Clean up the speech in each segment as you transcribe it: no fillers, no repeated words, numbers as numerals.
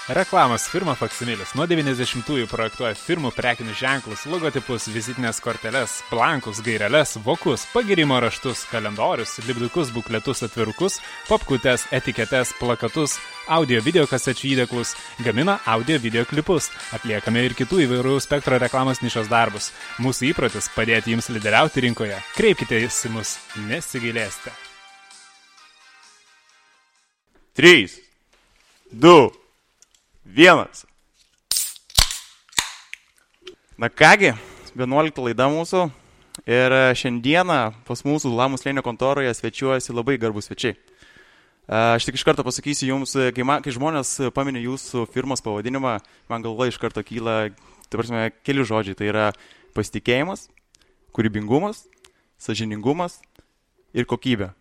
Reklamos firma Faksimilis nuo 90-ųjų projektuoja firmų prekinius ženklus, logotipus, vizitinės korteles, blankus, gaireles, vokus, pagirimo raštus, kalendorius, lipdukus, bukletus, atvirukus, popkutes, etiketes, plakatus, audio video kasečių įdėklus, gamina audio video klipus, atliekame ir kitų įvairių spektro reklamos nišos darbus. Mūsų įprotis padėti jums lyderiauti rinkoje. Kreipkitės į mus, nesigailėsite. 3, 2, 1. Na kągi, 11 laida mūsų ir šiandieną pas mūsų Lamų slėnio kontoroje svečiuojasi labai garbus svečiai. Aš tik iš karto pasakysiu jums, kai žmonės paminė jūsų firmos pavadinimą, man galva iš karto kyla, keli žodžiai. Tai yra pasitikėjimas, kūrybingumas, sąžiningumas ir kokybė.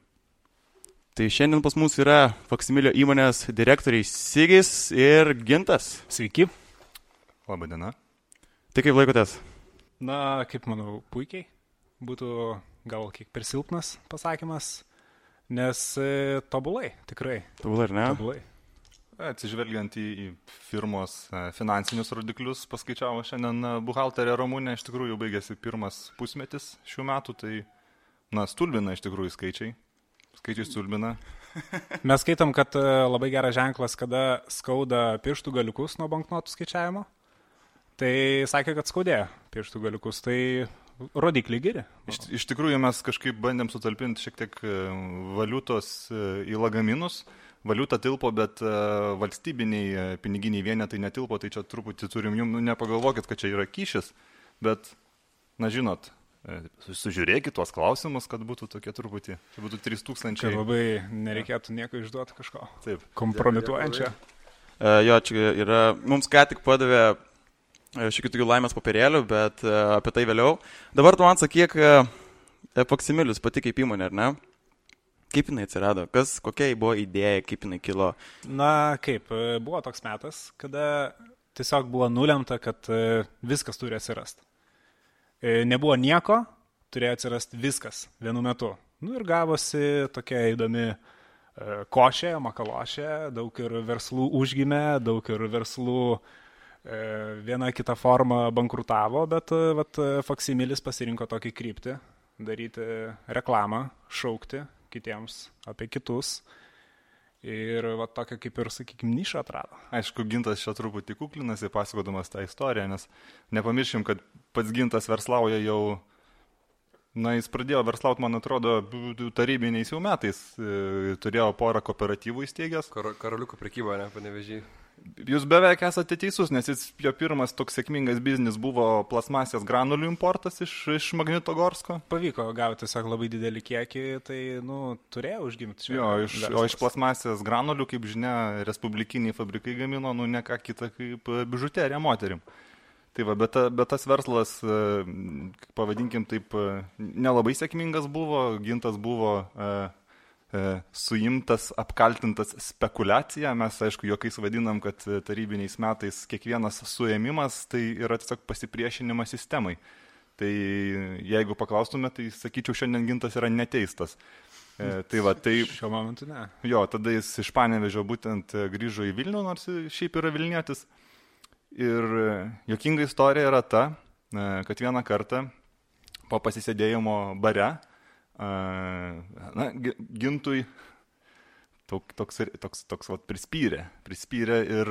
Tai šiandien pas mus yra Faksimilio įmonės direktoriai Sigis ir Gintas. Sveiki. Labadiena. Tai kaip laikotės? Na, kaip manau, puikiai. Būtų gal kiek per silpnas pasakymas, nes tobulai, tikrai. Tobulai, ar ne? Tobulai. Atsižvelgiant į firmos finansinius rodiklius, paskaičiavo šiandien buhalterė Ramūnė, iš tikrųjų baigėsi pirmas pusmetis šių metų, tai stulbina iš tikrųjų skaičiai. Skaičiai stulbina. Mes skaitom, kad labai geras ženklas, kada skauda pirštų galiukus nuo banknotų skaičiavimo. Tai sakė, kad skaudėjo pirštų galiukus, tai rodikliai geri. Iš tikrųjų mes kažkaip bandėm sutalpinti šiek tiek valiutos į lagaminus. Valiuta tilpo, bet valstybiniai piniginiai vienetai netilpo, tai čia truputį turim jums, nepagalvokit, kad čia yra kyšis, bet, žinot, sužiūrėkit tuos klausimus, kad būtų tokie truputį, čia būtų 3000. Kad labai nereikėtų nieko išduoti kažko. Taip. Kompromituojančio. Jo, čia yra, mums ką tik padavė šiokių tokių laimės papirėlių, bet apie tai vėliau. Dabar tu man sakyk, Faksimilius pati kaip įmonė, ar ne? Kaip jinai atsirado? Kokia buvo idėja, kaip jinai kilo? Na, kaip, buvo toks metas, kada tiesiog buvo nulemta, kad viskas turi atsirasti. Nebuvo nieko, turėjo atsirasti viskas vienu metu. Ir gavosi tokia įdomi košė, makalošė, daug ir verslų užgimė, daug ir verslų viena kita forma bankrutavo, bet Faksimilis pasirinko tokį kryptį, daryti reklamą, šaukti kitiems apie kitus. Ir tokia kaip ir, sakykime, nišą atrado. Aišku, Gintas čia truputį kuklinasi, pasakodamas tą istoriją, nes nepamiršim, kad pats Gintas verslauja jau, jis pradėjo verslauti, man atrodo, tarybiniais jau metais. Turėjo porą kooperatyvų įsteigęs. Karoliuko prekyba, ne, Panevėžy. Jūs beveik esate teisus, nes jo pirmas toks sėkmingas biznis buvo plasmasės granulių importas iš Magnitogorsko. Pavyko gauti tiesiog labai didelį kiekį, tai, turėjo užgimti. Jo, iš plasmasės granulių, kaip žinia, respublikiniai fabrikai gamino, ne ką kitą kaip bižuteriją moterim. Tai bet tas verslas, pavadinkim taip, nelabai sėkmingas buvo, Gintas buvo suimtas, apkaltintas spekulacija. Mes, aišku, juokais vadinam, kad tarybiniais metais kiekvienas suėmimas tai yra tiesiog pasipriešinimas sistemai. Tai jeigu paklaustume, tai sakyčiau, šiandien Gintas yra neteistas. Šiuo momentu ne. Jo, tada jis iš Panevėžio būtent grįžo į Vilnių, nors šiaip yra Vilnietis. Ir juokinga istorija yra ta, kad vieną kartą po pasisėdėjimo bare Gintui toks prispyrė ir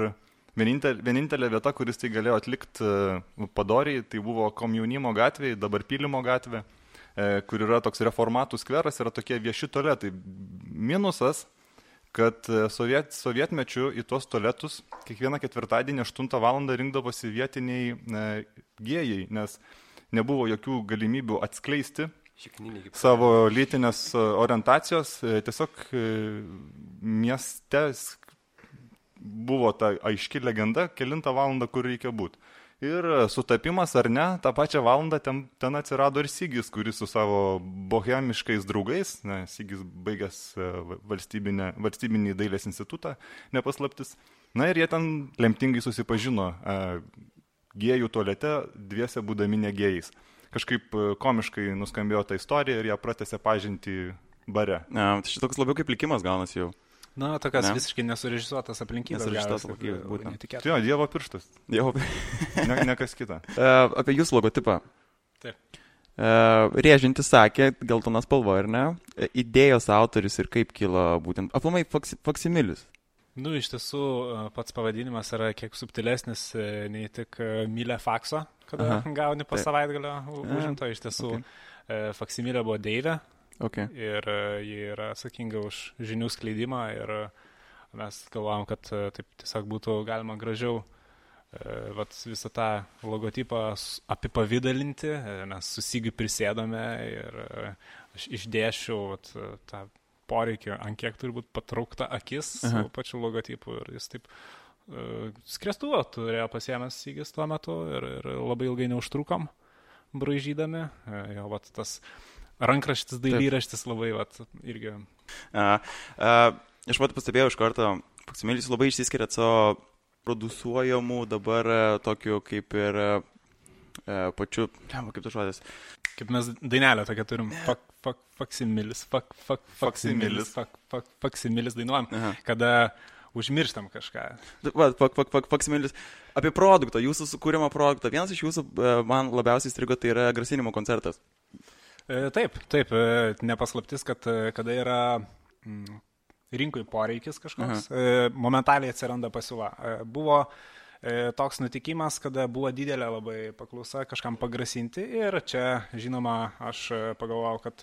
vienintelė vieta, kuris tai galėjo atlikti padoriai, tai buvo Komjaunimo gatvėje, dabar Pylimo gatvė, kur yra toks reformatų skveras, yra tokie vieši tualetai. Minusas, kad sovietmečiu į tuos tualetus kiekvieną ketvirtadienį 8 valandą rinkdavosi vietiniai gėjai, nes nebuvo jokių galimybių atskleisti savo lytinės orientacijos. Tiesiog mieste buvo ta aiški legenda, kelintą valandą, kur reikia būti. Ir sutapimas ar ne, tą pačią valandą ten atsirado ir Sigis, kuris su savo bohemiškais draugais, Sigis baigęs valstybinį dailės institutą, nepaslaptis. Ir jie ten lemtingai susipažino gėjų tualete, dviese būdami negėjais. Kažkaip komiškai nuskambėjo ta istorija ir ją pratęsė pažinti bare. Tai šitoks labiau kaip likimas gaunasi jau. Na, tokias Ne. visiškai nesurežisuotas aplinkybės. Nesurežisuotas gavosi, aplinkybės, labai būtent. netikėta. Tai jo, Dievo pirštas, Jau. ne kas kita. Apie jūsų logotipą. Taip. Rėžintis sakė, geltonas spalva, ar ne? Idėjos autoris ir kaip kilo būtent. Aplamai faksimilis. Nu, iš tiesų, pats pavadinimas yra kiek subtilesnis nei tik mylė fakso, kada gauni po savaitgalio užimto. Iš tiesų, faksimilė buvo Deivė. Okay. Ir ji yra atsakinga už žinių skleidimą ir mes galvojam, kad taip tiesiog būtų galima gražiau visą tą logotipą apipavydalinti, nes susigiu prisėdome ir aš išdėšiau tą poreikį, ant kiek turi būti patraukta akis su pačiu logotipu ir jis taip skriestuvo turėjo pasiėmęs Sigis tuo metu ir labai ilgai neužtrukom braižydami. Jo, tas rankraštis, dailyraštis labai, irgi. Aš pastebėjau iš karto, faksimilis labai išsiskiria savo produsuojamų dabar tokiu kaip ir pačiu, kaip tas žodis. Kaip mes dainelę tokia turim, faksimilis dainuojam, kada užmirštam kažką. Faksimilis. Apie produktą, jūsų sukūrimo produktą. Vienas iš jūsų man labiausiai strigo, tai yra grasinimo koncertas. Taip, nepaslaptis, kad kada yra rinkui poreikis kažkoks, momentaliai atsiranda pasiūla. Buvo toks nutikimas, kada buvo didelė labai paklausa kažkam pagrasinti ir čia, žinoma, aš pagalvojau, kad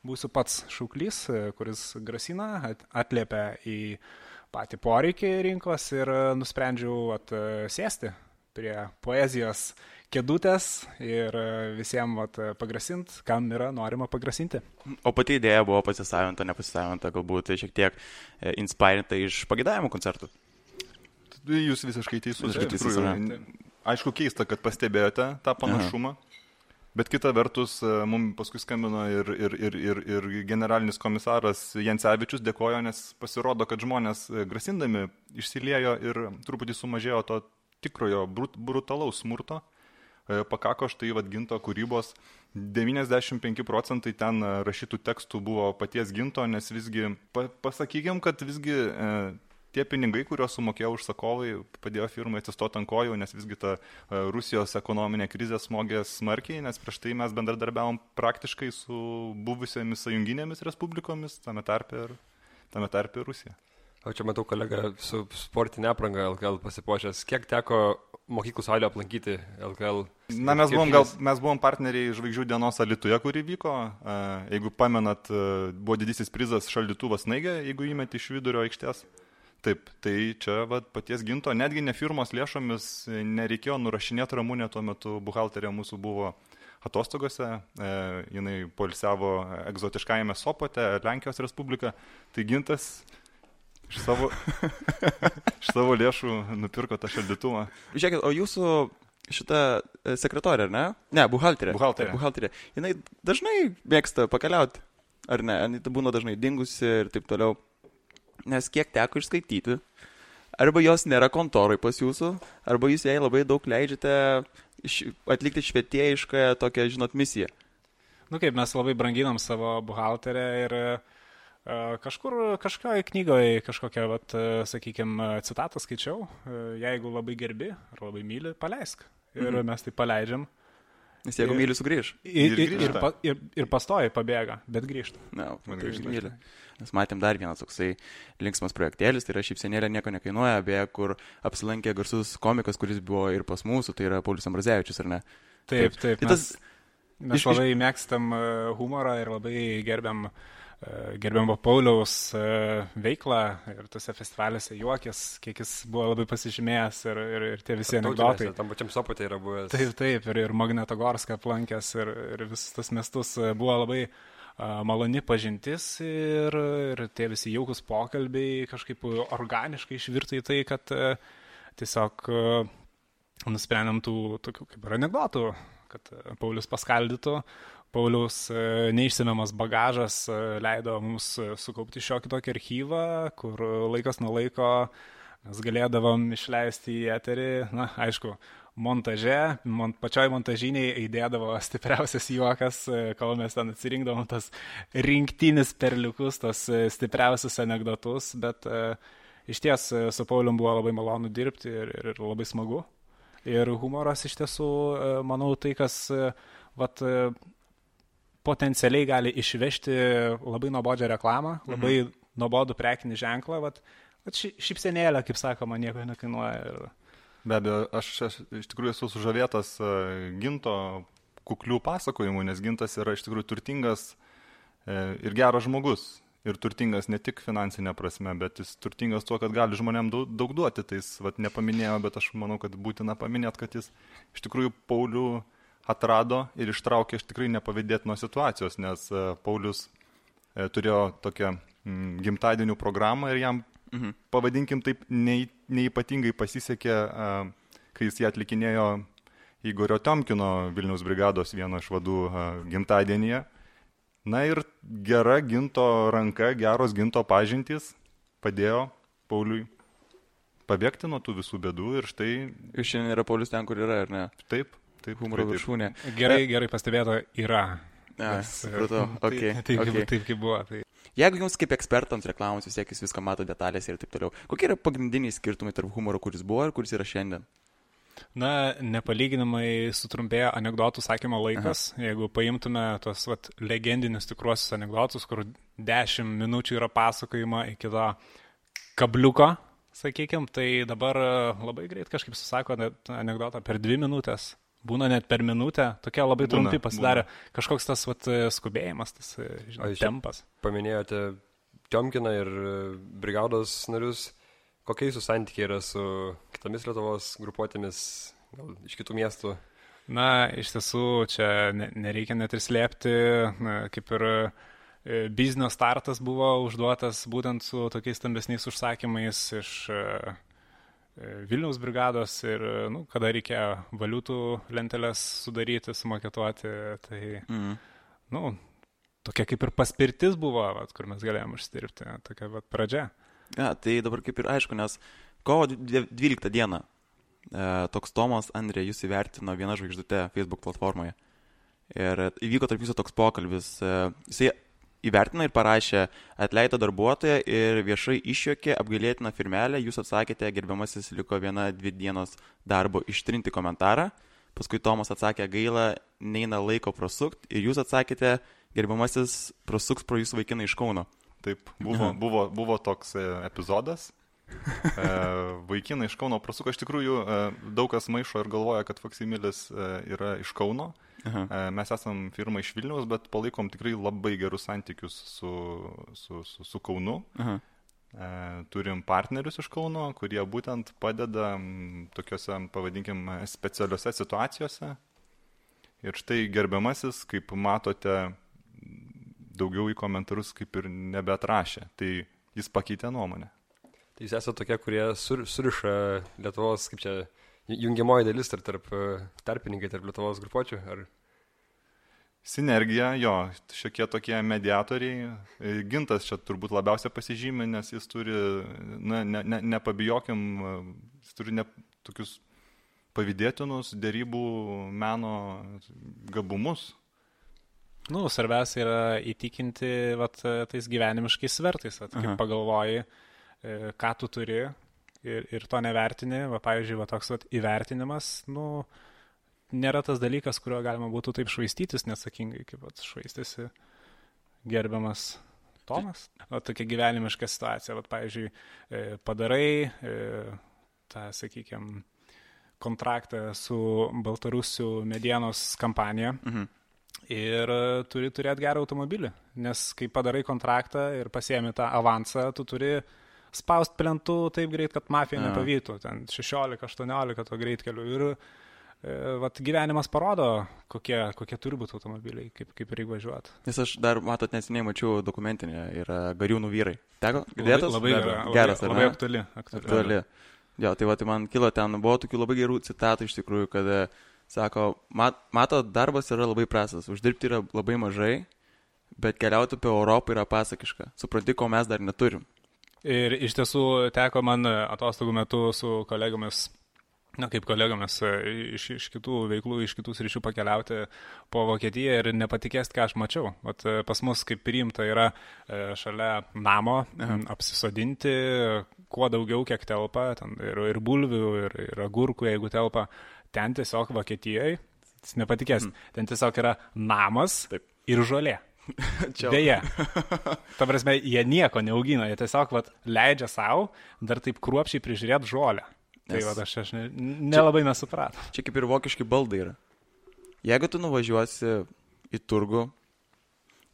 būsiu pats šauklys, kuris grasina, atliepia į patį poreikį rinkos ir nusprendžiau sėsti prie poezijos kėdutės ir visiems pagrasint, kam yra norima pagrasinti. O pati idėja buvo pasisavinta, nepasisavinta, galbūt šiek tiek inspirinta iš pagėdavimo koncertų. Jūs visiškai teisus. Aišku, keista, kad pastebėjote tą panašumą, bet kita vertus, mums paskui skambino ir generalinis komisaras Jancevičius dėkojo, nes pasirodo, kad žmonės grasindami išsiliejo ir truputį sumažėjo to tikrojo brutalaus smurto. Pakako štai Ginto kūrybos, 95% ten rašytų tekstų buvo paties Ginto, nes visgi, pasakykim, kad visgi tie pinigai, kuriuos sumokėjo užsakovai, padėjo firmai atsistoti ant kojų, nes visgi ta Rusijos ekonominė krizė smogė smarkiai, nes prieš tai mes bendradarbiavom praktiškai su buvusiomis sąjunginėmis respublikomis, tame tarpe ir Rusija. O čia matau kolegą su sportinė apranga LKL pasipuošęs. Kiek teko mokyklų salio aplankyti LKL? Na, mes buvom partneriai Žvaigždžių dienos Alytuje, kuri vyko. Jeigu pamenat, buvo didysis prizas šaldytuvas Snaigė, jeigu įmeti iš vidurio aikštės. Taip, tai čia paties Ginto, netgi ne firmos lėšomis nereikėjo nurašinėti Ramunė, tuo metu buhalterė mūsų buvo atostogose, jinai poilsiavo egzotiškajame Sopote, Lenkijos Respublika, tai Gintas iš savo lėšų nupirko tą šaldytuvą. Žiūrėkit, o jūsų šita sekretorė, ar ne? Ne, buhalterė. Buhalterė. Jinai dažnai mėgsta pakeliauti, ar ne? Jinai būna dažnai dingusi ir taip toliau. Nes kiek teko išskaityti, arba jos nėra kontoroj pas jūsų, arba jūs jai labai daug leidžiate atlikti švietėjišką tokią, misiją. Nu kaip, mes labai branginam savo buhalterę ir kažkoje knygoje kažkokią, sakykime, citatą skaičiau, jeigu labai gerbi ar labai myli, paleisk. Ir mes tai paleidžiam. Nes jeigu myli, sugrįž. Ir pastoja, pabėga, bet grįžta. Na, myli. Mes matėm dar vienas toksai linksmas projektėlis, tai yra šypsenėlė nieko nekainuoja, beje, kur apsilankė garsus komikas, kuris buvo ir pas mūsų, tai yra Paulius Ambrazevičius, ar ne? Taip. Mes labai mėgstam humorą ir labai gerbiam Pauliaus veiklą ir tose festivaliuose juokės, kiek jis buvo labai pasižymėjęs ir tie visi anekdotai. Tam pačiam Sopote yra buvęs. Taip, ir Magnetogorską aplankęs ir visus tas miestus buvo labai maloni pažintis ir tie visi jaukus pokalbiai kažkaip organiškai išvirto į tai, kad tiesiog nusprendėm tų tokių kaip ir anekdotų, kad Paulius paskaldytų. Pauliaus neišsemiamas bagažas leido mums sukaupti šiokį tokį archyvą, kur laikas nuo laiko mes galėdavom išleisti į eterį. Na, aišku, montaže, pačioj montažiniai įdėdavo stipriausias juokas, kol mes ten atsirinkdavom tas rinktinis perliukus, tos stipriausius anegdotus, bet iš ties su Paulium buvo labai malonu dirbti ir labai smagu. Ir humoras iš tiesų, manau, tai, kas potencialiai gali išvežti labai nuobodžią reklamą, labai nuobodų prekinį ženklą, šypsenėlę, kaip sakoma, nieko nekainuoja. Be abejo, aš iš tikrųjų esu sužavėtas Ginto kuklių pasakojimų, nes Gintas yra iš tikrųjų turtingas ir geras žmogus. Ir turtingas ne tik finansinė prasme, bet jis turtingas tuo, kad gali žmonėm daug duoti. Tai jis nepaminėjo, bet aš manau, kad būtina paminėti, kad jis iš tikrųjų Paulių atrado ir ištraukė iš tikrai nepavydėtinos situacijos, nes Paulius turėjo tokią gimtadienių programą ir jam, pavadinkim taip, neįpatingai pasisekė, kai jis ją atlikinėjo Igorio Tiomkino Vilniaus brigados vieno iš vadų gimtadienyje. Na ir gera Ginto ranka, geros Ginto pažintys padėjo Pauliui pabėgti nuo tų visų bėdų ir štai... Ir šiandien yra Paulius ten, kur yra, ar ne? Taip, humoro viršūnė. Gerai pastebėto, yra. Supratau, okay. Taip kaip buvo. Tai. Jeigu jums kaip ekspertams reklamos vis tiek jūs viską mato detalės ir taip toliau, kokie yra pagrindiniai skirtumai tarp humoro, kuris buvo ir kuris yra šiandien? Na, nepalyginamai sutrumpėjo anekdotų sakymo laikas. Jeigu paimtume tos legendinius tikruosius anekdotus, kur 10 minučių yra pasakojama iki to kabliuko, sakykime, tai dabar labai greit kažkaip susako anekdotą per 2 minutės. Būna net per minutę, tokie labai trumpi pasidarė. Kažkoks tas skubėjimas, tas tempas. Paminėjote Tiomkiną ir brigados narius. Kokie jūsų santykiai yra su kitomis Lietuvos grupuotėmis, gal iš kitų miestų? Na, iš tiesų, čia nereikia net ir slėpti, kaip ir biznio startas buvo užduotas būtent su tokiais stambesniais užsakymais iš Vilniaus brigados ir, kada reikėjo valiutų lenteles sudaryti, sumaketuoti, tai, tokia kaip ir paspirtis buvo, kur mes galėjom užsidirbti, tokia pradžia. Ja, tai dabar kaip ir aišku, nes kovo 12 dieną toks Tomas Andrė jūs įvertino viena žvaigždute Facebook platformoje. Ir įvyko tarp jūsų toks pokalbis. Jisai įvertino ir parašė, atleido darbuotoją ir viešai išjuokė apgailėtiną firmelę. Jūs atsakėte, gerbiamasis, liko 1-2 dienos darbo ištrinti komentarą. Paskui Tomas atsakė, gaila, neina laiko prasukt. Ir jūs atsakėte, gerbiamasis, prasuks pro jūsų vaikiną iš Kauno. Taip, buvo toks epizodas. Vaikinai iš Kauno prasuko. Iš tikrųjų, daug kas maišo ir galvoja, kad Faksimilis yra iš Kauno. Mes esam firma iš Vilniaus, bet palaikom tikrai labai gerus santykius su Kaunu. Turim partnerius iš Kauno, kurie būtent padeda tokiuose, pavadinkim, specialiuose situacijose. Ir štai gerbiamasis, kaip matote, daugiau į komentarus kaip ir nebeatrašė. Tai jis pakeitė nuomonę. Tai jūs esate tokie, kurie suriša Lietuvos, kaip čia, jungiamoji dalis tarp tarpininkai, tarp Lietuvos grupuočių? Ar... Sinergija, jo, šiokie tokie mediatoriai. Gintas čia turbūt labiausiai pasižymė, nes jis turi, nepabijokim, jis turi tokius pavydėtinus dėrybų meno gabumus. Svarbiausia yra įtikinti tais gyvenimiškais svertais, kaip pagalvoji, ką tu turi ir to nevertini. Pavyzdžiui, toks įvertinimas, nėra tas dalykas, kurio galima būtų taip švaistytis neatsakingai, kaip švaistėsi gerbiamas Tomas. Tokia gyvenimiška situacija. Pavyzdžiui, padarai tą, sakykime, kontraktą su Baltarusių medienos kampanija. Ir turi turėti gerą automobilį, nes kai padarai kontraktą ir pasiemi tą avansą, tu turi spaust plentų taip greit, kad mafija nepavytų, ten 16-18 to greitkelių. Ir gyvenimas parodo, kokie turi būti automobiliai, kaip reikia važiuoti. Nes aš dar, matot, neseniai mačiau dokumentinę, yra Gariūnų vyrai. Teko? Girdėtas? Labai aktuali. Jo, tai man kilo ten, buvo tokių labai gerų citatų iš tikrųjų, kad sako, mato, darbas yra labai prastas, uždirbti yra labai mažai, bet keliauti apie Europą yra pasakiška. Supranti, ko mes dar neturim. Ir iš tiesų teko man atostogų metu su kolegomis Na, kaip kolegomis iš kitų veiklų, iš kitų sričių pakeliauti po Vokietiją ir nepatikėst, ką aš mačiau. Vat pas mus kaip priimta yra šalia namo apsisodinti, kuo daugiau, kiek telpa, ten ir bulvių, ir agurkų, jeigu telpa. Ten tiesiog Vokietijoje, nepatikės, ten tiesiog yra namas ir žolė. Deja. Ta prasme, jie nieko neaugina, jie tiesiog leidžia savo dar taip kruopšiai prižiūrėti žolę. Tai aš nelabai nesupratau. Čia kaip ir vokiški baldai yra. Jeigu tu nuvažiuosi į turgų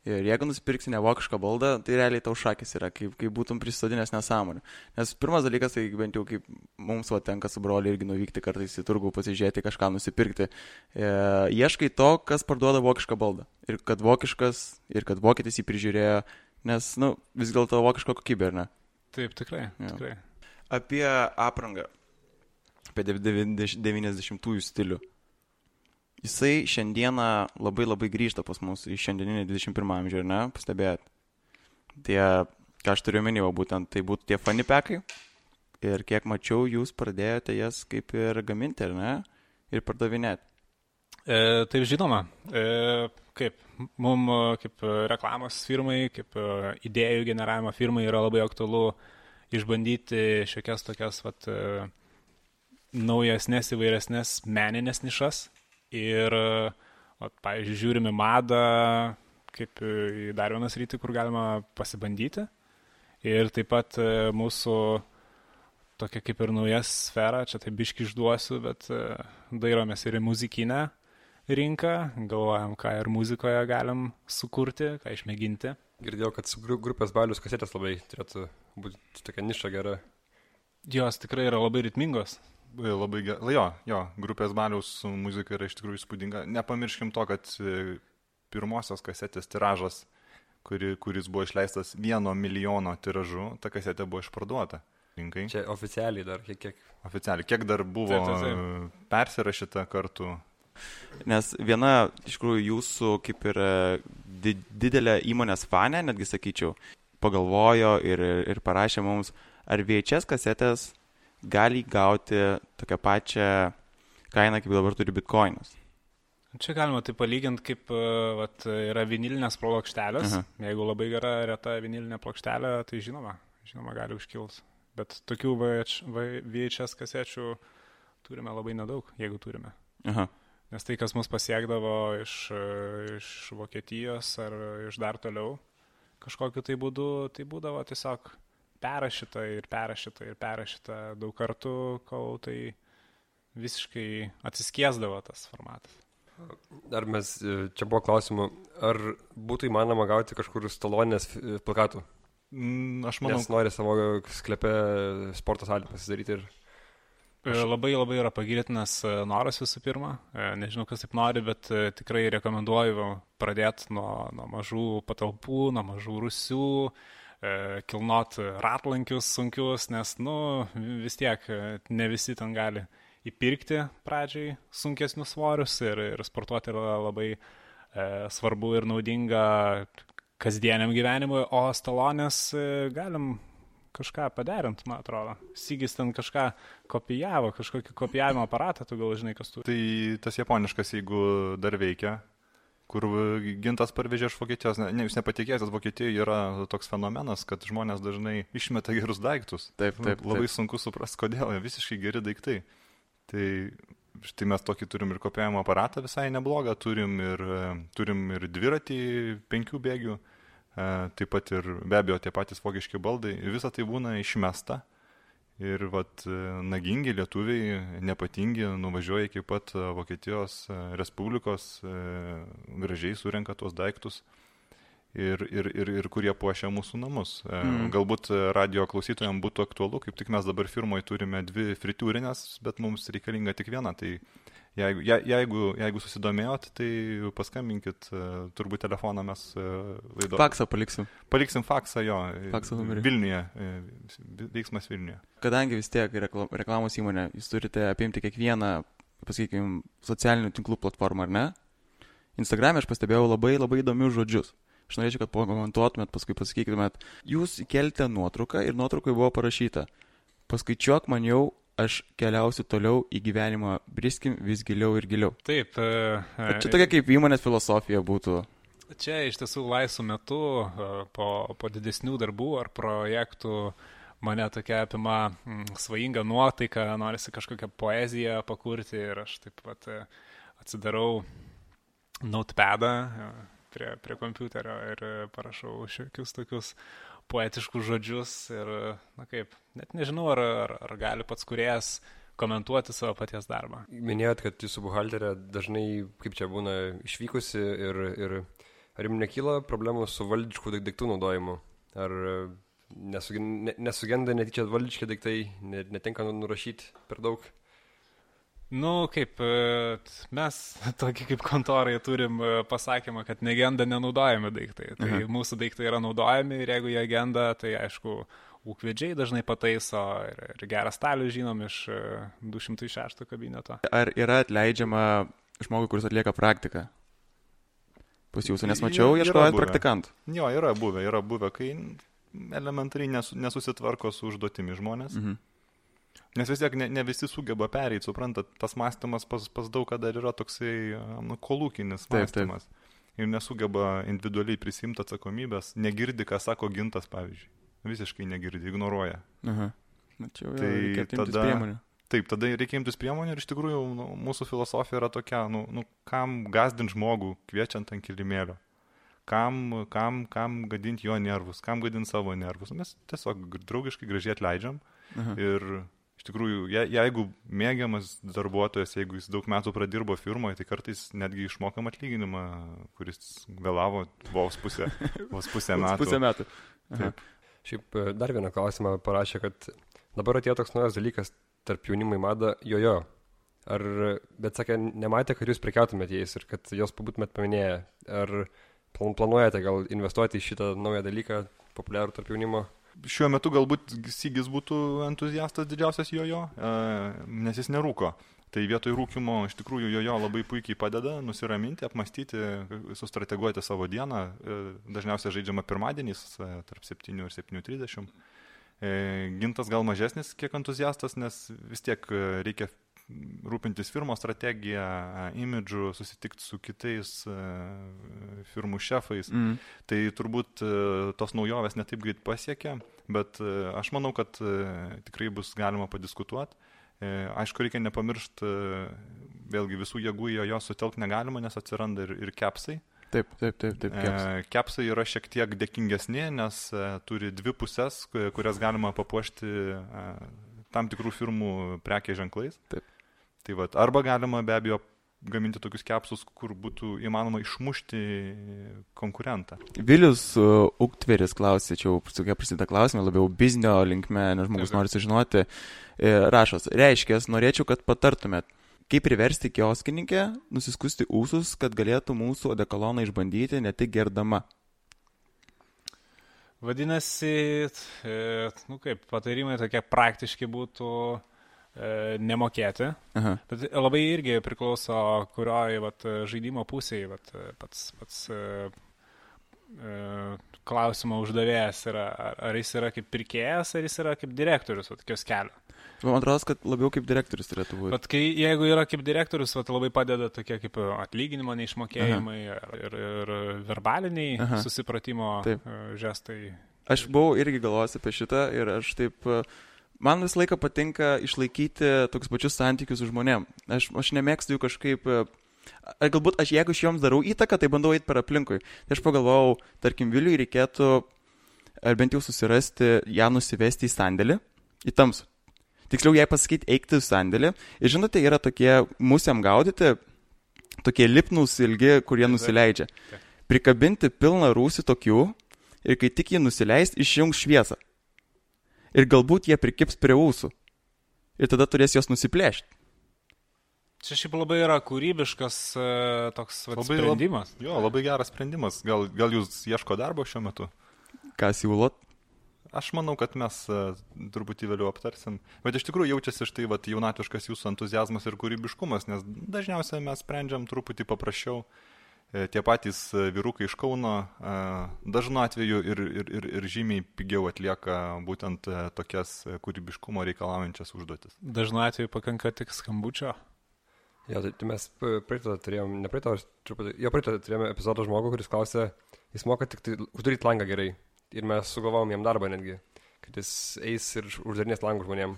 ir jeigu nusipirksi ne vokišką baldą, tai realiai tau šakis yra, kaip būtum prisodinęs nesąmonę. Nes pirmas dalykas, tai bent jau kaip mums tenka su broliu irgi nuvykti kartais į turgų, pasižiūrėti, kažką nusipirkti. Ieškai to, kas parduoda vokišką baldą. Ir kad vokiškas, ir kad vokietis jį prižiūrėjo, nes, vis dėlto vokiško kokybė, ar ne? Taip, tikrai. Apie aprangą. Apie 90-ųjų stilių. Jisai šiandieną labai grįžta pas mus į šiandieninį 21 amžių, ar ne? Pastebėjot. Ką aš turiu minėjau, būtent tai būtų tie fanny packai. Ir kiek mačiau, jūs pradėjote jas kaip ir gaminti, ar ne? Ir pardavinėti. Taip, žinoma. Kaip reklamos firmai, kaip idėjų generavimo firmai yra labai aktualu išbandyti šiokias tokias naujesnės, įvairesnės meninės nišas ir, pavyzdžiui, žiūrime madą kaip į dar vieną sritį, kur galima pasibandyti ir taip pat mūsų tokia kaip ir nauja sfera, čia tai biški išduosiu, bet dairomės ir į muzikinę rinką, galvojam, ką ir muzikoje galim sukurti, ką išmėginti. Girdėjau, kad su grupės Balius kasetės labai turėtų būti tokia niša gera. Jos tikrai yra labai ritmingos. Labai gerai. Jo, grupės Baliaus muzika yra iš tikrųjų įspūdinga. Nepamirškim to, kad pirmosios kasetės tiražas, kuris buvo išleistas 1 milijono tiražu, ta kasetė buvo išparduota rinkai. Čia oficialiai dar kiek? Oficialiai. Kiek dar buvo persirašyta kartu? Nes viena, iš tikrųjų, jūsų kaip ir didelė įmonės fanė, netgi sakyčiau, pagalvojo ir parašė mums, ar VHS kasetės gali gauti tokią pačią kainą, kaip dabar turi bitcoinus. Čia galima tai palyginti, kaip yra vinilinės plokštelės. Jeigu labai gera reta vinilinė plokštelė, tai žinoma gali užkils. Bet tokių VHS kasečių turime labai nedaug, jeigu turime. Nes tai, kas mus pasiekdavo iš Vokietijos ar iš dar toliau kažkokiu tai būdu, tai būdavo tiesiog perrašyta daug kartų, kol tai visiškai atsiskiesdavo tas formatas. Ar čia buvo klausimų, ar būtų įmanoma gauti kažkur Stalonės plakatų? Aš manau. Nes nori savo sklepe sporto salį pasidaryti ir... Labai yra pagirtinas noras visų pirma. Nežinau, kas taip nori, bet tikrai rekomenduoju pradėti nuo mažų patalpų, nuo mažų rūsių, kilnot ratlankius sunkius, nes, vis tiek ne visi ten gali įpirkti pradžiai sunkesnius svorius ir sportuoti yra labai svarbu ir naudinga kasdieniam gyvenimui, o Stalonės galim kažką paderint, man atrodo. Sigis ten kažką kopijavo, kažkokį kopijavimo aparatą, tu gal žinai, kas turi. Tai tas japoniškas, jeigu dar veikia, kur Gintas parvežė iš Vokietijos. Jūs nepatikėsite, Vokietijoje yra toks fenomenas, kad žmonės dažnai išmeta gerus daiktus. Taip. Labai sunku suprasti, kodėl, visiškai geri daiktai. Tai štai mes tokį turim ir kopijavimo aparatą visai neblogą, turim ir dviratį 5 bėgių, taip pat ir be abejo tie patys vokiški baldai. Visą tai būna išmesta. Ir nagingi lietuviai, nepatingi, nuvažiuoja iki pat Vokietijos Respublikos, gražiai surenka tuos daiktus ir kurie puošia mūsų namus. Galbūt radio klausytojams būtų aktualu, kaip tik mes dabar firmoje turime 2 fritiūrinės, bet mums reikalinga tik viena. Tai jeigu susidomėjot, tai paskambinkit, turbūt telefoną mes laido. Faksą paliksim. Paliksim faksą, jo. Faksą numerį. Vilniuje, veiksmas Vilniuje. Kadangi vis tiek reklamos įmonė, jūs turite apimti kiekvieną, pasakykime, socialinių tinklų platformą, ar ne? Instagram'e aš pastebėjau labai įdomius žodžius. Aš norėčiau, kad pakomentuotumėt, paskui pasakytumėt, jūs įkelite nuotrauką ir nuotraukai buvo parašyta: paskaičiuok man jau aš keliausiu toliau į gyvenimą, briskim vis giliau ir giliau. Taip. Čia tokia kaip įmonės filosofija būtų. Čia iš tiesų laisvų metų, po didesnių darbų ar projektų, mane tokia apima svajinga nuotaika, norisi kažkokią poeziją pakurti ir aš taip pat atsidarau notepadą prie kompiuterio ir parašau šiokius tokius poetiškus žodžius ir, na kaip, net nežinau, ar gali pats kūrėjas komentuoti savo paties darbą. Minėjot, kad jūsų buhalterė dažnai, kaip čia būna, išvykusi ir ar jums nekyla problemų su valdiškų daiktų naudojimu? Ar nesugenda netyčia valdiški daiktai, netinka nurašyti per daug? Nu, kaip mes, tokį kaip kontorai, turim pasakymą, kad negenda nenaudojami daiktai. Tai mūsų daiktai yra naudojami ir jeigu jie genda, tai aišku, ūkvedžiai dažnai pataiso ir gerą stalių žinom iš 206 kabineto. Ar yra atleidžiama žmogui, kuris atlieka praktiką? Pas jūsų, nes mačiau, ieškojant praktikantų. Jo, yra buvę, kai elementariai nesusitvarko su užduotimi žmonės. Nes vis tiek ne visi sugeba pereiti, suprantat, tas mąstymas pas daug kada yra toksai kolūkinis mąstymas. Ir nesugeba individualiai prisimti atsakomybės, negirdi, ką sako Gintas, pavyzdžiui. Visiškai negirdi, ignoruoja. Mačiau, tai reikia imtis priemonių. Taip, tada reikia imtis priemonių ir iš tikrųjų mūsų filosofija yra tokia, kam gazdinti žmogų kviečiant ant kilimėlio, kam gadinti jo nervus, kam gadinti savo nervus. Mes tiesiog draugiškai gražiai atleidžiam ir iš tikrųjų, jeigu mėgiamas darbuotojas, jeigu jis daug metų pradirbo firmoje, tai kartais netgi išmokam atlyginimą, kuris vėlavo vos pusę metų. Šiaip dar vieną klausimą parašė, kad dabar atėjo toks naujas dalykas tarp jaunimo į madą jojo. Bet sakė, nematė, kad jūs prekiautumėte jais ir kad jos pabūtumėt paminėję. Ar planuojate gal investuoti į šitą naują dalyką, populiarų tarp jaunimo? Šiuo metu galbūt Sigis būtų entuziastas didžiausias jojo, nes jis nerūko. Tai vietoj rūkimo iš tikrųjų jojo labai puikiai padeda nusiraminti, apmastyti, sustrateguoti savo dieną. Dažniausiai žaidžiama pirmadieniais tarp 7 ir 7:30. Gintas gal mažesnis kiek entuziastas, nes vis tiek reikia rūpintis firmos strategiją, imidžu, susitikti su kitais firmų šefais. Tai turbūt tos naujovės netaip greit pasiekia, bet aš manau, kad tikrai bus galima padiskutuoti. Aišku, reikia nepamiršti, vėlgi visų jėgų jo sutelkti negalima, nes atsiranda ir kepsai. Taip. Kepsai yra šiek tiek dėkingesni, nes turi dvi pusės, kurias galima papuošti tam tikrų firmų prekės ženklais. Taip. Tai vat, arba galima be abejo gaminti tokius kepsus, kur būtų įmanoma išmušti konkurentą. Vilius Uktveris klausė, čia jau prasideda klausimai, labiau biznio linkme, nes žmogus nori sužinoti. Rašos, reiškės, norėčiau, kad patartumėt, kaip priversti kioskininkę nusiskusti ūsus, kad galėtų mūsų odekoloną išbandyti ne tik gerdama. Vadinasi, kaip patarimai tokie praktiški būtų nemokėti. Bet labai irgi priklauso, kurioje žaidimo pusėje pats klausimo uždavėjas yra. Ar jis yra kaip pirkėjas, ar jis yra kaip direktorius kioskelio. Man atrodo, kad labiau kaip direktorius turėtų būti. Bet jeigu yra kaip direktorius, labai padeda tokie kaip atlyginimo neišmokėjimai ir verbaliniai susipratimo žestai. Aš buvau irgi galvojęs apie šitą ir aš taip, man visą laiką patinka išlaikyti tokius pačius santykius su žmonėm. Aš nemėgstu jų kažkaip, galbūt jeigu aš joms darau įtaką, tai bandau eiti per aplinkui. Tai aš pagalvojau, tarkim, Viliui reikėtų, ar bent jau susirasti, ją nusivesti į sandėlį, į tamsų. Tiksliau jai pasakyti, eikti į sandėlį. Ir žinote, yra tokie musiam gaudyti, tokie lipnūs ilgi, kurie nusileidžia. Prikabinti pilną rūsį tokių ir kai tik jį nusileist, išjungs šviesą. Ir galbūt jie prikips prie ūsų. Ir tada turės jos nusiplėšti. Čia šiaip labai yra kūrybiškas toks sprendimas. Labai geras sprendimas. Gal jūs ieško darbo šiuo metu? Ką siūlot? Aš manau, kad mes truputį vėliau aptarsim. Bet iš tikrųjų jaučiasi štai jaunatviškas jūsų entuziazmas ir kūrybiškumas, nes dažniausiai mes sprendžiam truputį paprasčiau. tie patys vyrukai iš Kauno dažnu atveju ir žymiai pigiau atlieka būtent tokias kūrybiškumo reikalaujančias užduotis. Dažnu atveju pakanka tik skambučio. Ja, tai mes praeitą turėjome epizodą žmogų, kuris klausė, jis moka tik tai uždaryti langą gerai. Ir mes sugalvom jam darbą netgi, kad jis eis ir uždarinės langų žmonėm.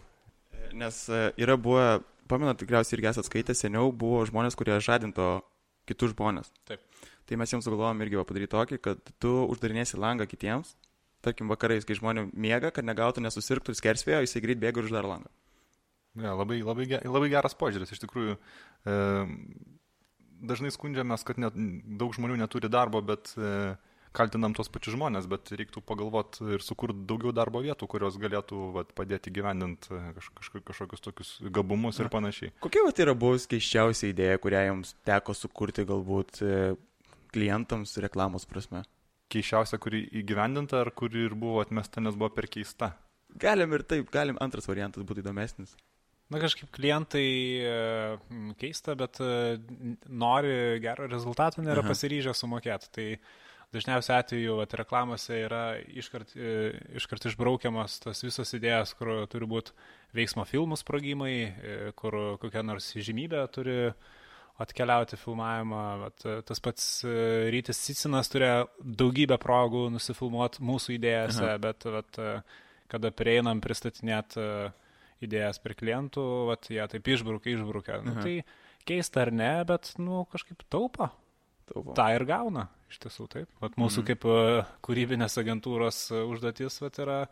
Nes yra buvę, pamenat, tikriausiai irgi esat skaitę, seniau buvo žmonės, kurie žadinto kitus žmonės. Taip. Tai mes jiems sugalvojom irgi padaryti tokį, kad tu uždarinėsi langą kitiems, tarkim vakarais, kai žmonės miega, kad negautų, nesusirgtų ir skersvėjo, jisai greit bėga ir uždar langą. Ja, labai geras požiūris. Iš tikrųjų, dažnai skundžiamės, kad daug žmonių neturi darbo, bet kaltinam tos pačius žmonės, bet reiktų pagalvoti ir sukurti daugiau darbo vietų, kurios galėtų padėti gyvendinti kažkokius tokius gabumus ir panašiai. Kokia yra buvus keiščiausia idėja, kurią jums teko sukurti galbūt klientams reklamos prasme? Keiščiausia, kuri įgyvendinta, ar kuri ir buvo atmesta, nes buvo per keista? Galim ir taip, antras variantas būtų įdomesnis. Na, kažkaip klientai keista, bet nori gero rezultato, nėra pasiryžę sumokėti. Tai dažniausiai atveju reklamose yra iškart išbraukiamas tas visos idėjas, kur turi būti veiksmo filmų sprogimai, kur kokia nors žymybė turi atkeliauti filmavimą. Tas pats Rytis Cicinas turėjo daugybę progų nusifilmuoti mūsų idėjose, bet kada prieinam pristatinėti idėjas per klientų, jie taip išbraukia. Nu, tai keista ar ne, bet kažkaip taupo. Ta ir gauna, iš tiesų taip. Mūsų kaip kūrybinės agentūros užduotis yra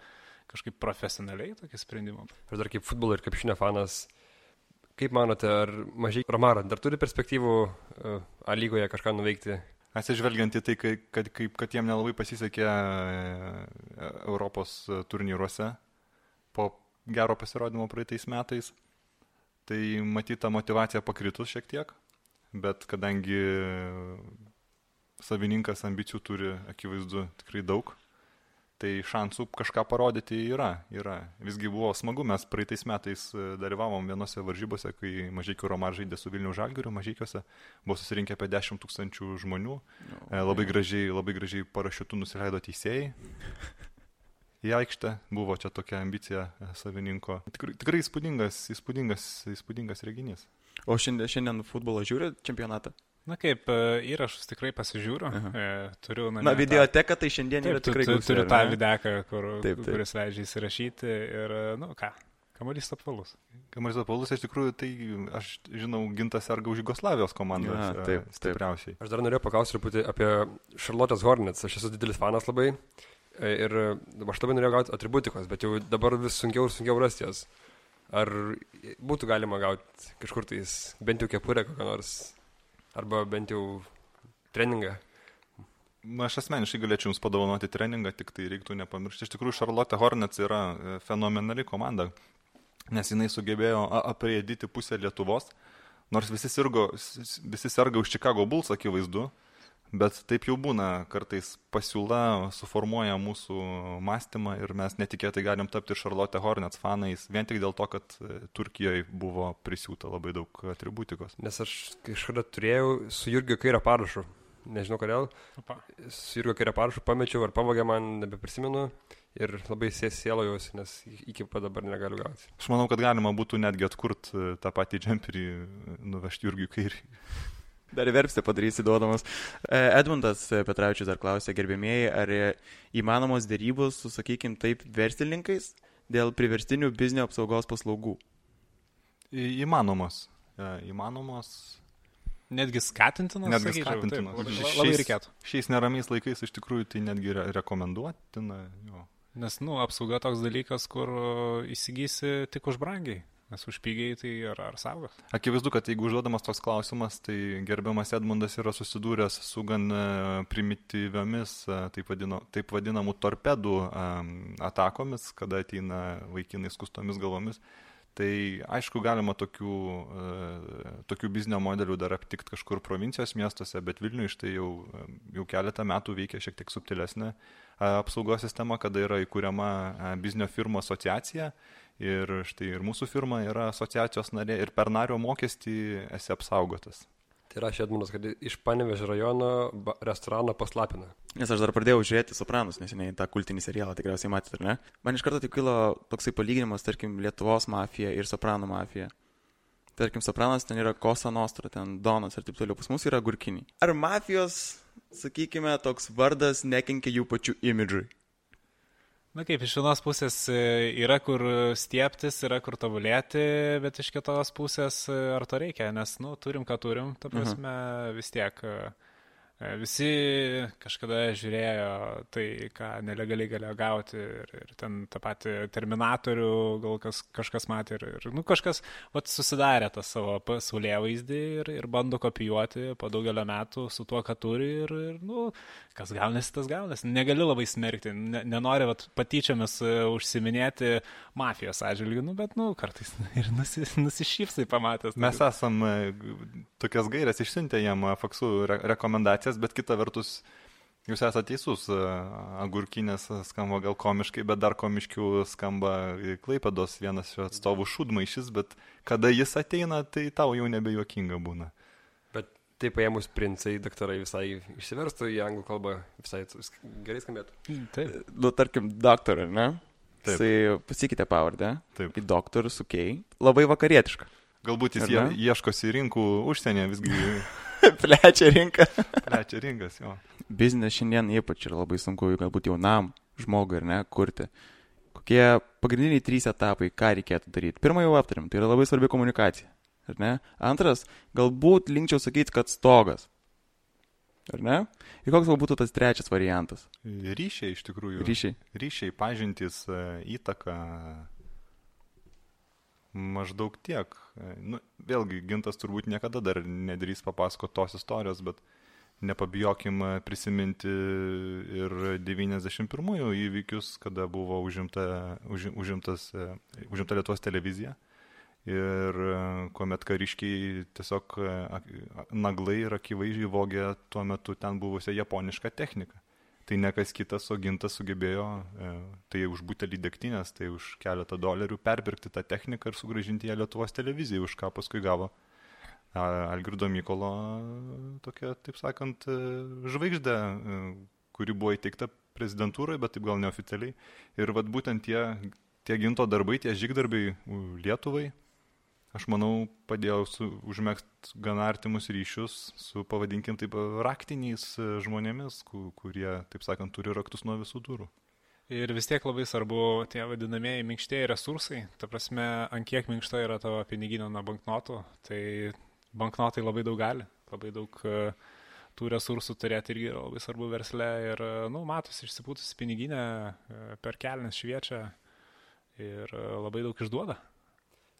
kažkaip profesionaliai tokį sprendimą. Aš dar kaip futbolo ir krepšinio fanas, kaip manote, ar mažai Romara dar turi perspektyvų A lygoje kažką nuveikti? Atsižvelgiant į tai, kad jiem nelabai pasisekė Europos turnyruose po gero pasirodymo praeitais metais, tai matyta motyvacija pakritus šiek tiek. Bet kadangi savininkas ambicijų turi akivaizdu tikrai daug, tai šansų kažką parodyti yra. Visgi buvo smagu, mes praeitais metais dalyvavom vienose varžybose, kai Mažeikių Romar žaidė su Vilniaus Žalgiriu, Mažeikiuose buvo susirinkę apie 10 000 žmonių, labai gražiai parašiutų nusileido teisėjai. Į aikštę buvo čia tokia ambicija savininko. Tikrai įspūdingas reginys. O šiandien futbolo žiūri čempionatą? Na kaip, įrašus tikrai pasižiūriu. Turiu videoteka tai šiandien yra tikrai gausi. Turiu tą videką, kuris leidžia įsirašyti ir, kamuolys apvalus. Kamuolys apvalus, iš tikrųjų, tai aš žinau, Gintas serga už Jugoslavijos komandą stipriausiai. Aš dar norėjau paklausti truputį apie Charlotte's Hornets. Aš esu didelis fanas labai ir aš labai norėjau gauti atributikos, bet jau dabar vis sunkiau ir sunkiau rasti jas. Ar būtų galima gauti kažkur tais bent jau kepurę kokią nors, arba bent jau treningą? Aš asmeniškai galėčiau jums padovanoti treningą, tik tai reiktų nepamiršti. Iš tikrųjų, Charlotte Hornets yra fenomenali komanda, nes jinai sugebėjo apriedyti pusę Lietuvos, nors visi serga už Chicago Bulls, akivaizdu, bet taip jau būna, kartais pasiūla suformuoja mūsų mąstymą ir mes netikėtai galim tapti Charlotte Hornets fanais, vien tik dėl to, kad Turkijoje buvo prisiūta labai daug atributikos. Nes aš kažkada turėjau su Jurgio Kairio parašu, nežinau kodėl, su Jurgio Kairio parašu pamečiau ar pavogė, man nebeprisimenu ir labai sėlojausi, nes iki pat dabar negaliu gauti. Aš manau, kad galima būtų netgi atkurti tą patį džemperį, nuvežti Jurgiui Kairiui. Dar verpstę padarysi duodamas. Edmundas Petravičius dar klausė, gerbėmieji, ar įmanomos dėrybos su, sakykim, taip, verslininkais dėl priverstinių biznio apsaugos paslaugų? Įmanomos. Netgi skatintinas? Netgi skatintinas. Labai reikėtų. Šiais neramiais laikais iš tikrųjų tai netgi rekomenduotina. Jo. Nes, apsauga toks dalykas, kur įsigysi tik už brangiai. Nes už pigiai tai ar saugos. Akivaizdu, kad jeigu užduodamas toks klausimas, tai gerbiamas Edmundas yra susidūręs su gan primityviomis, taip vadinamų torpedų atakomis, kada ateina vaikinai skustomis galvomis. Tai aišku, galima tokių biznio modelių dar aptikti kažkur provincijos miestuose, bet Vilniuje štai jau keletą metų veikia šiek tiek subtilesnė apsaugos sistema, kada yra įkuriama biznio firmų asociacija. Ir štai ir mūsų firma yra asociacijos narė ir per nario mokestį esi apsaugotas. Tai rašė Edmundas, kad iš Panevėžio rajono restorano paslapina. Nes aš dar pradėjau žiūrėti Sopranus, neseniai tą kultinį serialą, tikriausiai matėte, ar ne? Man iš karto tik kilo toksai palyginimas, tarkim, Lietuvos mafija ir Sopranų mafija. Tarkim, Sopranas ten yra Cosa Nostra, ten Donas ir taip toliau. Pas mus yra Gurkiniai. Ar mafijos, sakykime, toks vardas nekenkia jų pačių imidžui? Na kaip, iš vienos pusės yra kur stieptis, yra kur tobulėti, bet iš kitos pusės ar to reikia, nes, turim, ką turim, ta prasme, vis tiek visi kažkada žiūrėjo tai, ką nelegaliai galėjo gauti ir ten tą patį Terminatorių gal kažkas matė ir kažkas susidarė tą savo pasaulėvaizdį ir bando kopijuoti po daugelio metų su tuo, ką turi ir kas gaunasi, tas gaunasi. Negali labai smerkti, nenori patyčiomis užsiminėti mafijos atžvilgių, bet kartais ir nusišypsai pamatęs. Mes esam tokias gairias išsiuntę jam faksų rekomendacijas, bet kita vertus, jūs esate teisus, Agurkinės skamba gal komiškai, bet dar komiškiau skamba Klaipėdos vienas iš atstovų Šūdmaišis, bet kada jis ateina, tai tau jau nebejuokinga būna. Bet taip paėmus princai, daktarai visai išsiverstų į anglų kalbą, visai gerai skambėtų. Taip. Tarkim, doktor, ne? Taip. Tai pasikeitė pavardę. Taip. Į doktor su K. Labai vakarietiška. Galbūt jis ieškosi rinkų užsienyje, visgi Plečia rinką. plečia rinkas, jo. Biznes šiandien ypač yra labai sunku, galbūt jaunam žmogui, ar ne, kurti. Kokie pagrindiniai 3 etapai, ką reikėtų daryti? Pirmą jau aptarim, tai yra labai svarbi komunikacija, ar ne? Antras, galbūt linkčiau sakyti, kad stogas, ar ne? Ir koks galbūt tas 3 variantas? Ryšiai iš tikrųjų. Ryšiai, pažintys, įtaka, maždaug tiek. Vėlgi, Gintas turbūt niekada dar nedrįs papasakoti tos istorijos, bet nepabijokim prisiminti ir 91-ųjų įvykius, kada buvo užimta Lietuvos televizija ir kuomet kariškiai tiesiog naglai ir akivaizdžiai vogė tuo metu ten buvusią japonišką techniką. Tai ne kas kitas, o Gintas sugebėjo tai už butelį degtinės, tai už keletą $, perpirkti tą techniką ir sugrąžinti ją Lietuvos televizijai, už ką paskui gavo Algirdo Mykolo tokia, taip sakant, žvaigždė, kuri buvo įteikta prezidentūroje, bet taip gal neoficialiai. Ir būtent tie Ginto darbai, tie žygdarbai Lietuvai, aš manau, padėjau užmegzti gana artimus ryšius su, pavadinkim taip, raktiniais žmonėmis, kurie, taip sakant, turi raktus nuo visų durų. Ir vis tiek labai svarbu tie vadinamieji minkštieji resursai. Ta prasme, ant kiek minkšta yra tavo piniginė nuo banknotų, tai banknotai labai daug gali, labai daug tų resursų turėti irgi yra labai svarbu versle. Ir, matosi, išsipūtusi piniginė per kelnes šviečia ir labai daug išduoda.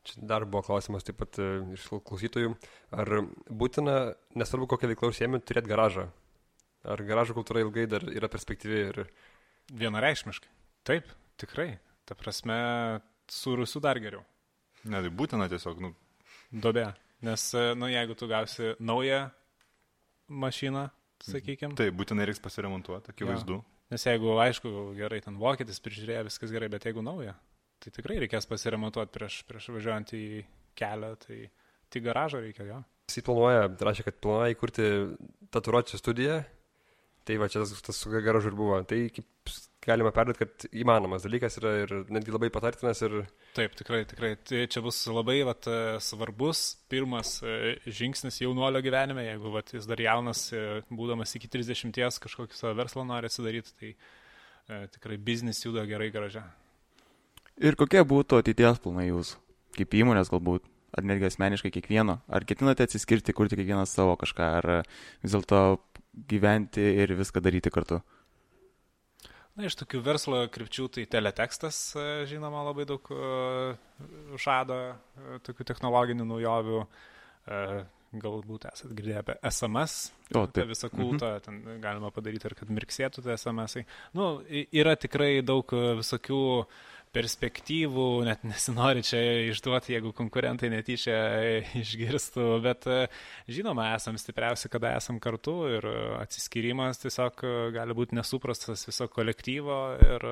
Čia dar buvo klausimas taip pat iš klausytojų, ar būtina, nesvarbu kokią veiklą užsiėmė, turėti garažą? Ar garažo kultūra ilgai dar yra perspektyvi? Ir... Vienareikšmiškai. Taip, tikrai. Ta prasme, su Rusu dar geriau. Ne, tai būtina tiesiog, Duobė. Nes, jeigu tu gausi naują mašiną, sakykime. Taip, būtinai reiks pasiremontuoti, akivaizdu. Nes jeigu, aišku, gerai, ten vokietis prižiūrėjo, viskas gerai, bet jeigu nauja, tai tikrai reikės pasiremontuoti prieš važiuojant į kelią, tai garažą reikia, jo. Jis rašė, kad planuoja įkurti tatuiruočių studiją, tai va čia tas su garažu ir buvo. Tai kaip galima perduoti, kad įmanomas dalykas yra ir netgi labai patartinas. Ir... Taip, tikrai. Tai čia bus labai svarbus pirmas žingsnis jaunuolio gyvenime, jeigu jis dar jaunas, būdamas iki 30, kažkokį savo verslą nori atsidaryti, tai tikrai biznis juda gerai garaže. Ir kokie būtų ateities planai jūsų? Kaip įmonės galbūt? Ar netgi asmeniškai kiekvieno? Ar ketinate atsiskirti, kurti kiekvienas savo kažką? Ar vis dėlto gyventi ir viską daryti kartu? Iš tokių verslo krypčių tai teletekstas, žinoma, labai daug žada tokių technologinių naujovių. Galbūt esat girdėję apie SMS, apie visą kultą, ten galima padaryti ir kad mirksėtų tie SMS-ai. Yra tikrai daug visokių perspektyvų, net nesinori čia išduoti, jeigu konkurentai netyčia išgirstų, bet žinoma, esam stipriausi, kada esam kartu ir atsiskyrimas tiesiog gali būti nesuprastas viso kolektyvo ir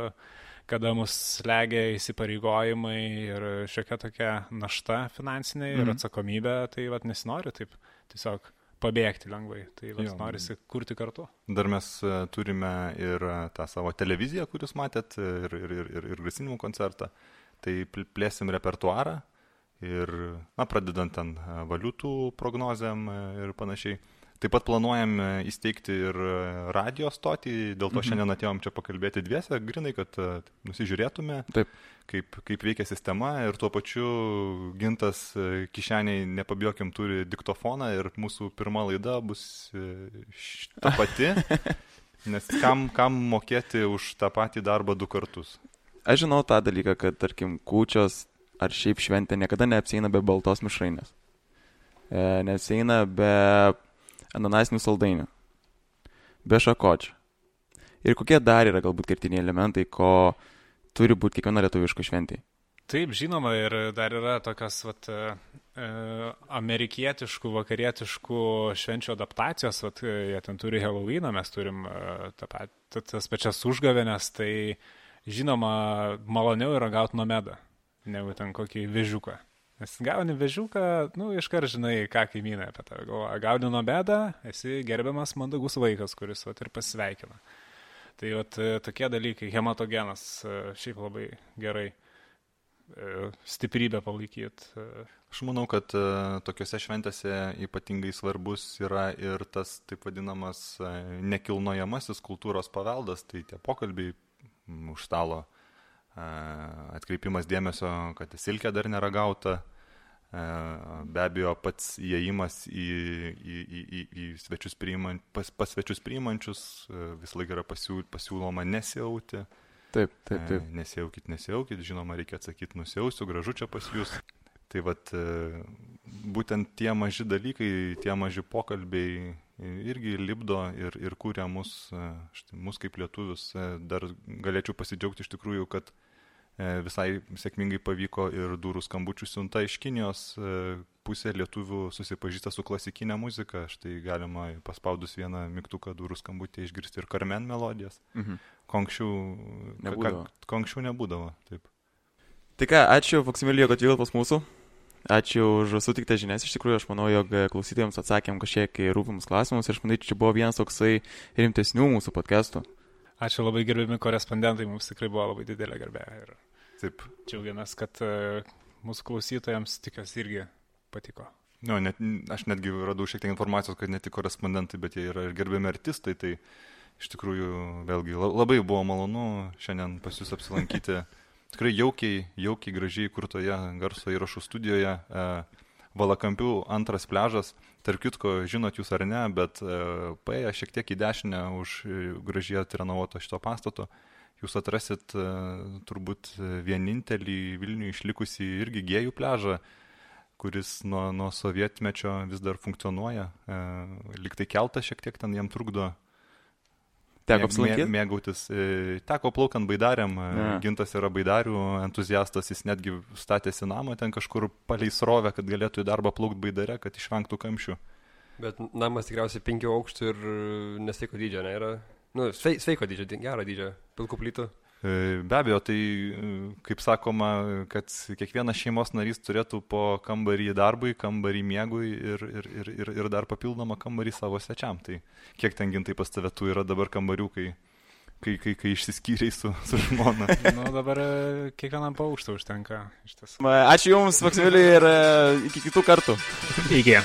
kada mus slegia įsipareigojimai ir šiokia tokia našta finansinė ir atsakomybė, tai nesinori taip tiesiog pabėgti lengvai. Tai norisi kurti kartu. Dar mes turime ir tą savo televiziją, kurius matėt, ir grasinimų koncertą. Tai plėsim repertuarą ir, pradedant ten valiutų prognozėm ir panašiai. Taip pat planuojam įsteigti ir radio stotį, dėl to šiandien atėjom čia pakalbėti dviese, grinai, kad nusižiūrėtume, kaip veikia sistema ir tuo pačiu Gintas kišeniai, nepabijokim, turi diktofoną ir mūsų pirma laida bus ta pati, nes kam mokėti už tą patį darbą 2 kartus. Aš žinau tą dalyką, kad, tarkim, kūčios ar šiaip šventė niekada neapsieina be baltos mišrainės. Neapsieina be ananasinių saldainių, be šakočių. Ir kokie dar yra galbūt kertiniai elementai, ko turi būti kiekviena lietuviška šventė? Taip, žinoma, ir dar yra tokios amerikietiškų, vakarietiškų švenčių adaptacijos, jie ten turi Halloweeną, mes turim tas pačias užgavėnes, tai žinoma, maloniau yra gauti nomedą, negu ten kokį vežiuką. Nes gauni vežiuką, iškart žinai, ką kaimynai apie tave galvoja. Gauni nomedą, esi gerbiamas mandagus vaikas, kuris ir pasveikina. Tai tokie dalykai, hematogenas, šiaip labai gerai stiprybę palaikyti. Aš manau, kad tokiuose šventėse ypatingai svarbus yra ir tas taip vadinamas nekilnojamasis kultūros paveldas, tai tie pokalbiai už stalo, atkreipimas dėmesio, kad silkė dar nėra gauta, be abejo pats įėjimas į svečius pas svečius priimančius, visą laiką yra pasiūloma nesiauti. Taip. Nesiaukit, žinoma, reikia atsakyti, nusiausiu, gražu čia pas jūs. Tai būtent tie maži dalykai, tie maži pokalbiai irgi lipdo ir kūrė mus kaip lietuvius. Dar galėčiau pasidžiaugti iš tikrųjų, kad visai sėkmingai pavyko ir durų skambučių siunta iš Kinijos. Pusė lietuvių susipažįsta su klasikinė muzika. Štai galima paspaudus vieną mygtuką durų skambutį išgirsti ir Carmen melodijas. Ko anksčiau nebūdavo. Taip. Tai ką, ačiū Faksimilijui, kad vyko pas mūsų. Ačiū už sutiktą žinias. Iš tikrųjų, aš manau, jog klausytojams atsakėm kažkiek rūpimus klausimus. Ir aš manau, čia buvo vienas toksai rimtesnių mūsų podcastų. Ačiū labai gerbiami korespondentai, mums tikrai buvo labai didelė garbė. Ir taip. Džiaugiamės, kad mūsų klausytojams tikiuosi irgi patiko. Aš netgi radau šiek tiek informacijos, kad ne tik korespondentai, bet jie yra ir gerbiami artistai. Tai iš tikrųjų, vėlgi, labai buvo malonu šiandien pas jūs apsilankyti. Tikrai jaukiai, gražiai kurtoje garso įrašų studijoje. Valakampių 2 pliažas. Tarp kitko, žinot jūs ar ne, bet paėję šiek tiek į dešinę už gražiai atrenovuoto šito pastato, jūs atrasit turbūt vienintelį Vilniuje išlikusį irgi gėjų pliažą, kuris nuo sovietmečio vis dar funkcionuoja. Lyg tai keltas šiek tiek ten jam trukdo. Teko apsilankyti? Mėgautis. Teko plaukant baidarėm. Gintas yra baidarių entuziastas, jis netgi statėsi namą ten kažkur palei srovę, kad galėtų į darbą plaukti baidare, kad išvengtų kamščių. Bet namas tikriausiai 5 aukštų ir nesveiko dydžio, ne? Yra, sveiko dydžio, gero dydžio, pilkų plytų. Be abejo, tai kaip sakoma, kad kiekvienas šeimos narys turėtų po kambarį darbui, kambarį miegui ir dar papildomą kambarį savo svečiam. Tai kiek ten Gintai pas tave tų yra dabar kambarių, kai išsiskyrei su žmona? Dabar kiekvienam po aukštą užtenka. Ačiū Jums, Faksimiliui, ir iki kitų kartų. Iki.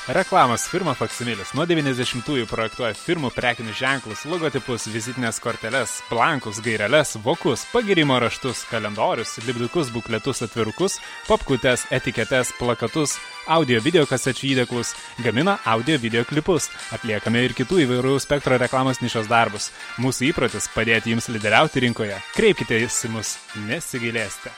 Reklamos firma Faksimilis nuo 90-ųjų projektuoja firmų prekinius ženklus, logotipus, vizitinės korteles, blankus, gaireles, vokus, pagirimo raštus, kalendorius, lipdukus, bukletus, atvirukus, popkutes, etiketes, plakatus, audio-video kasečių įdėklus, gamina audio-video klipus, atliekame ir kitų įvairių spektro reklamos nišos darbus. Mūsų įprotis padėti jums lyderiauti rinkoje. Kreipkite į mus, nesigailėsite.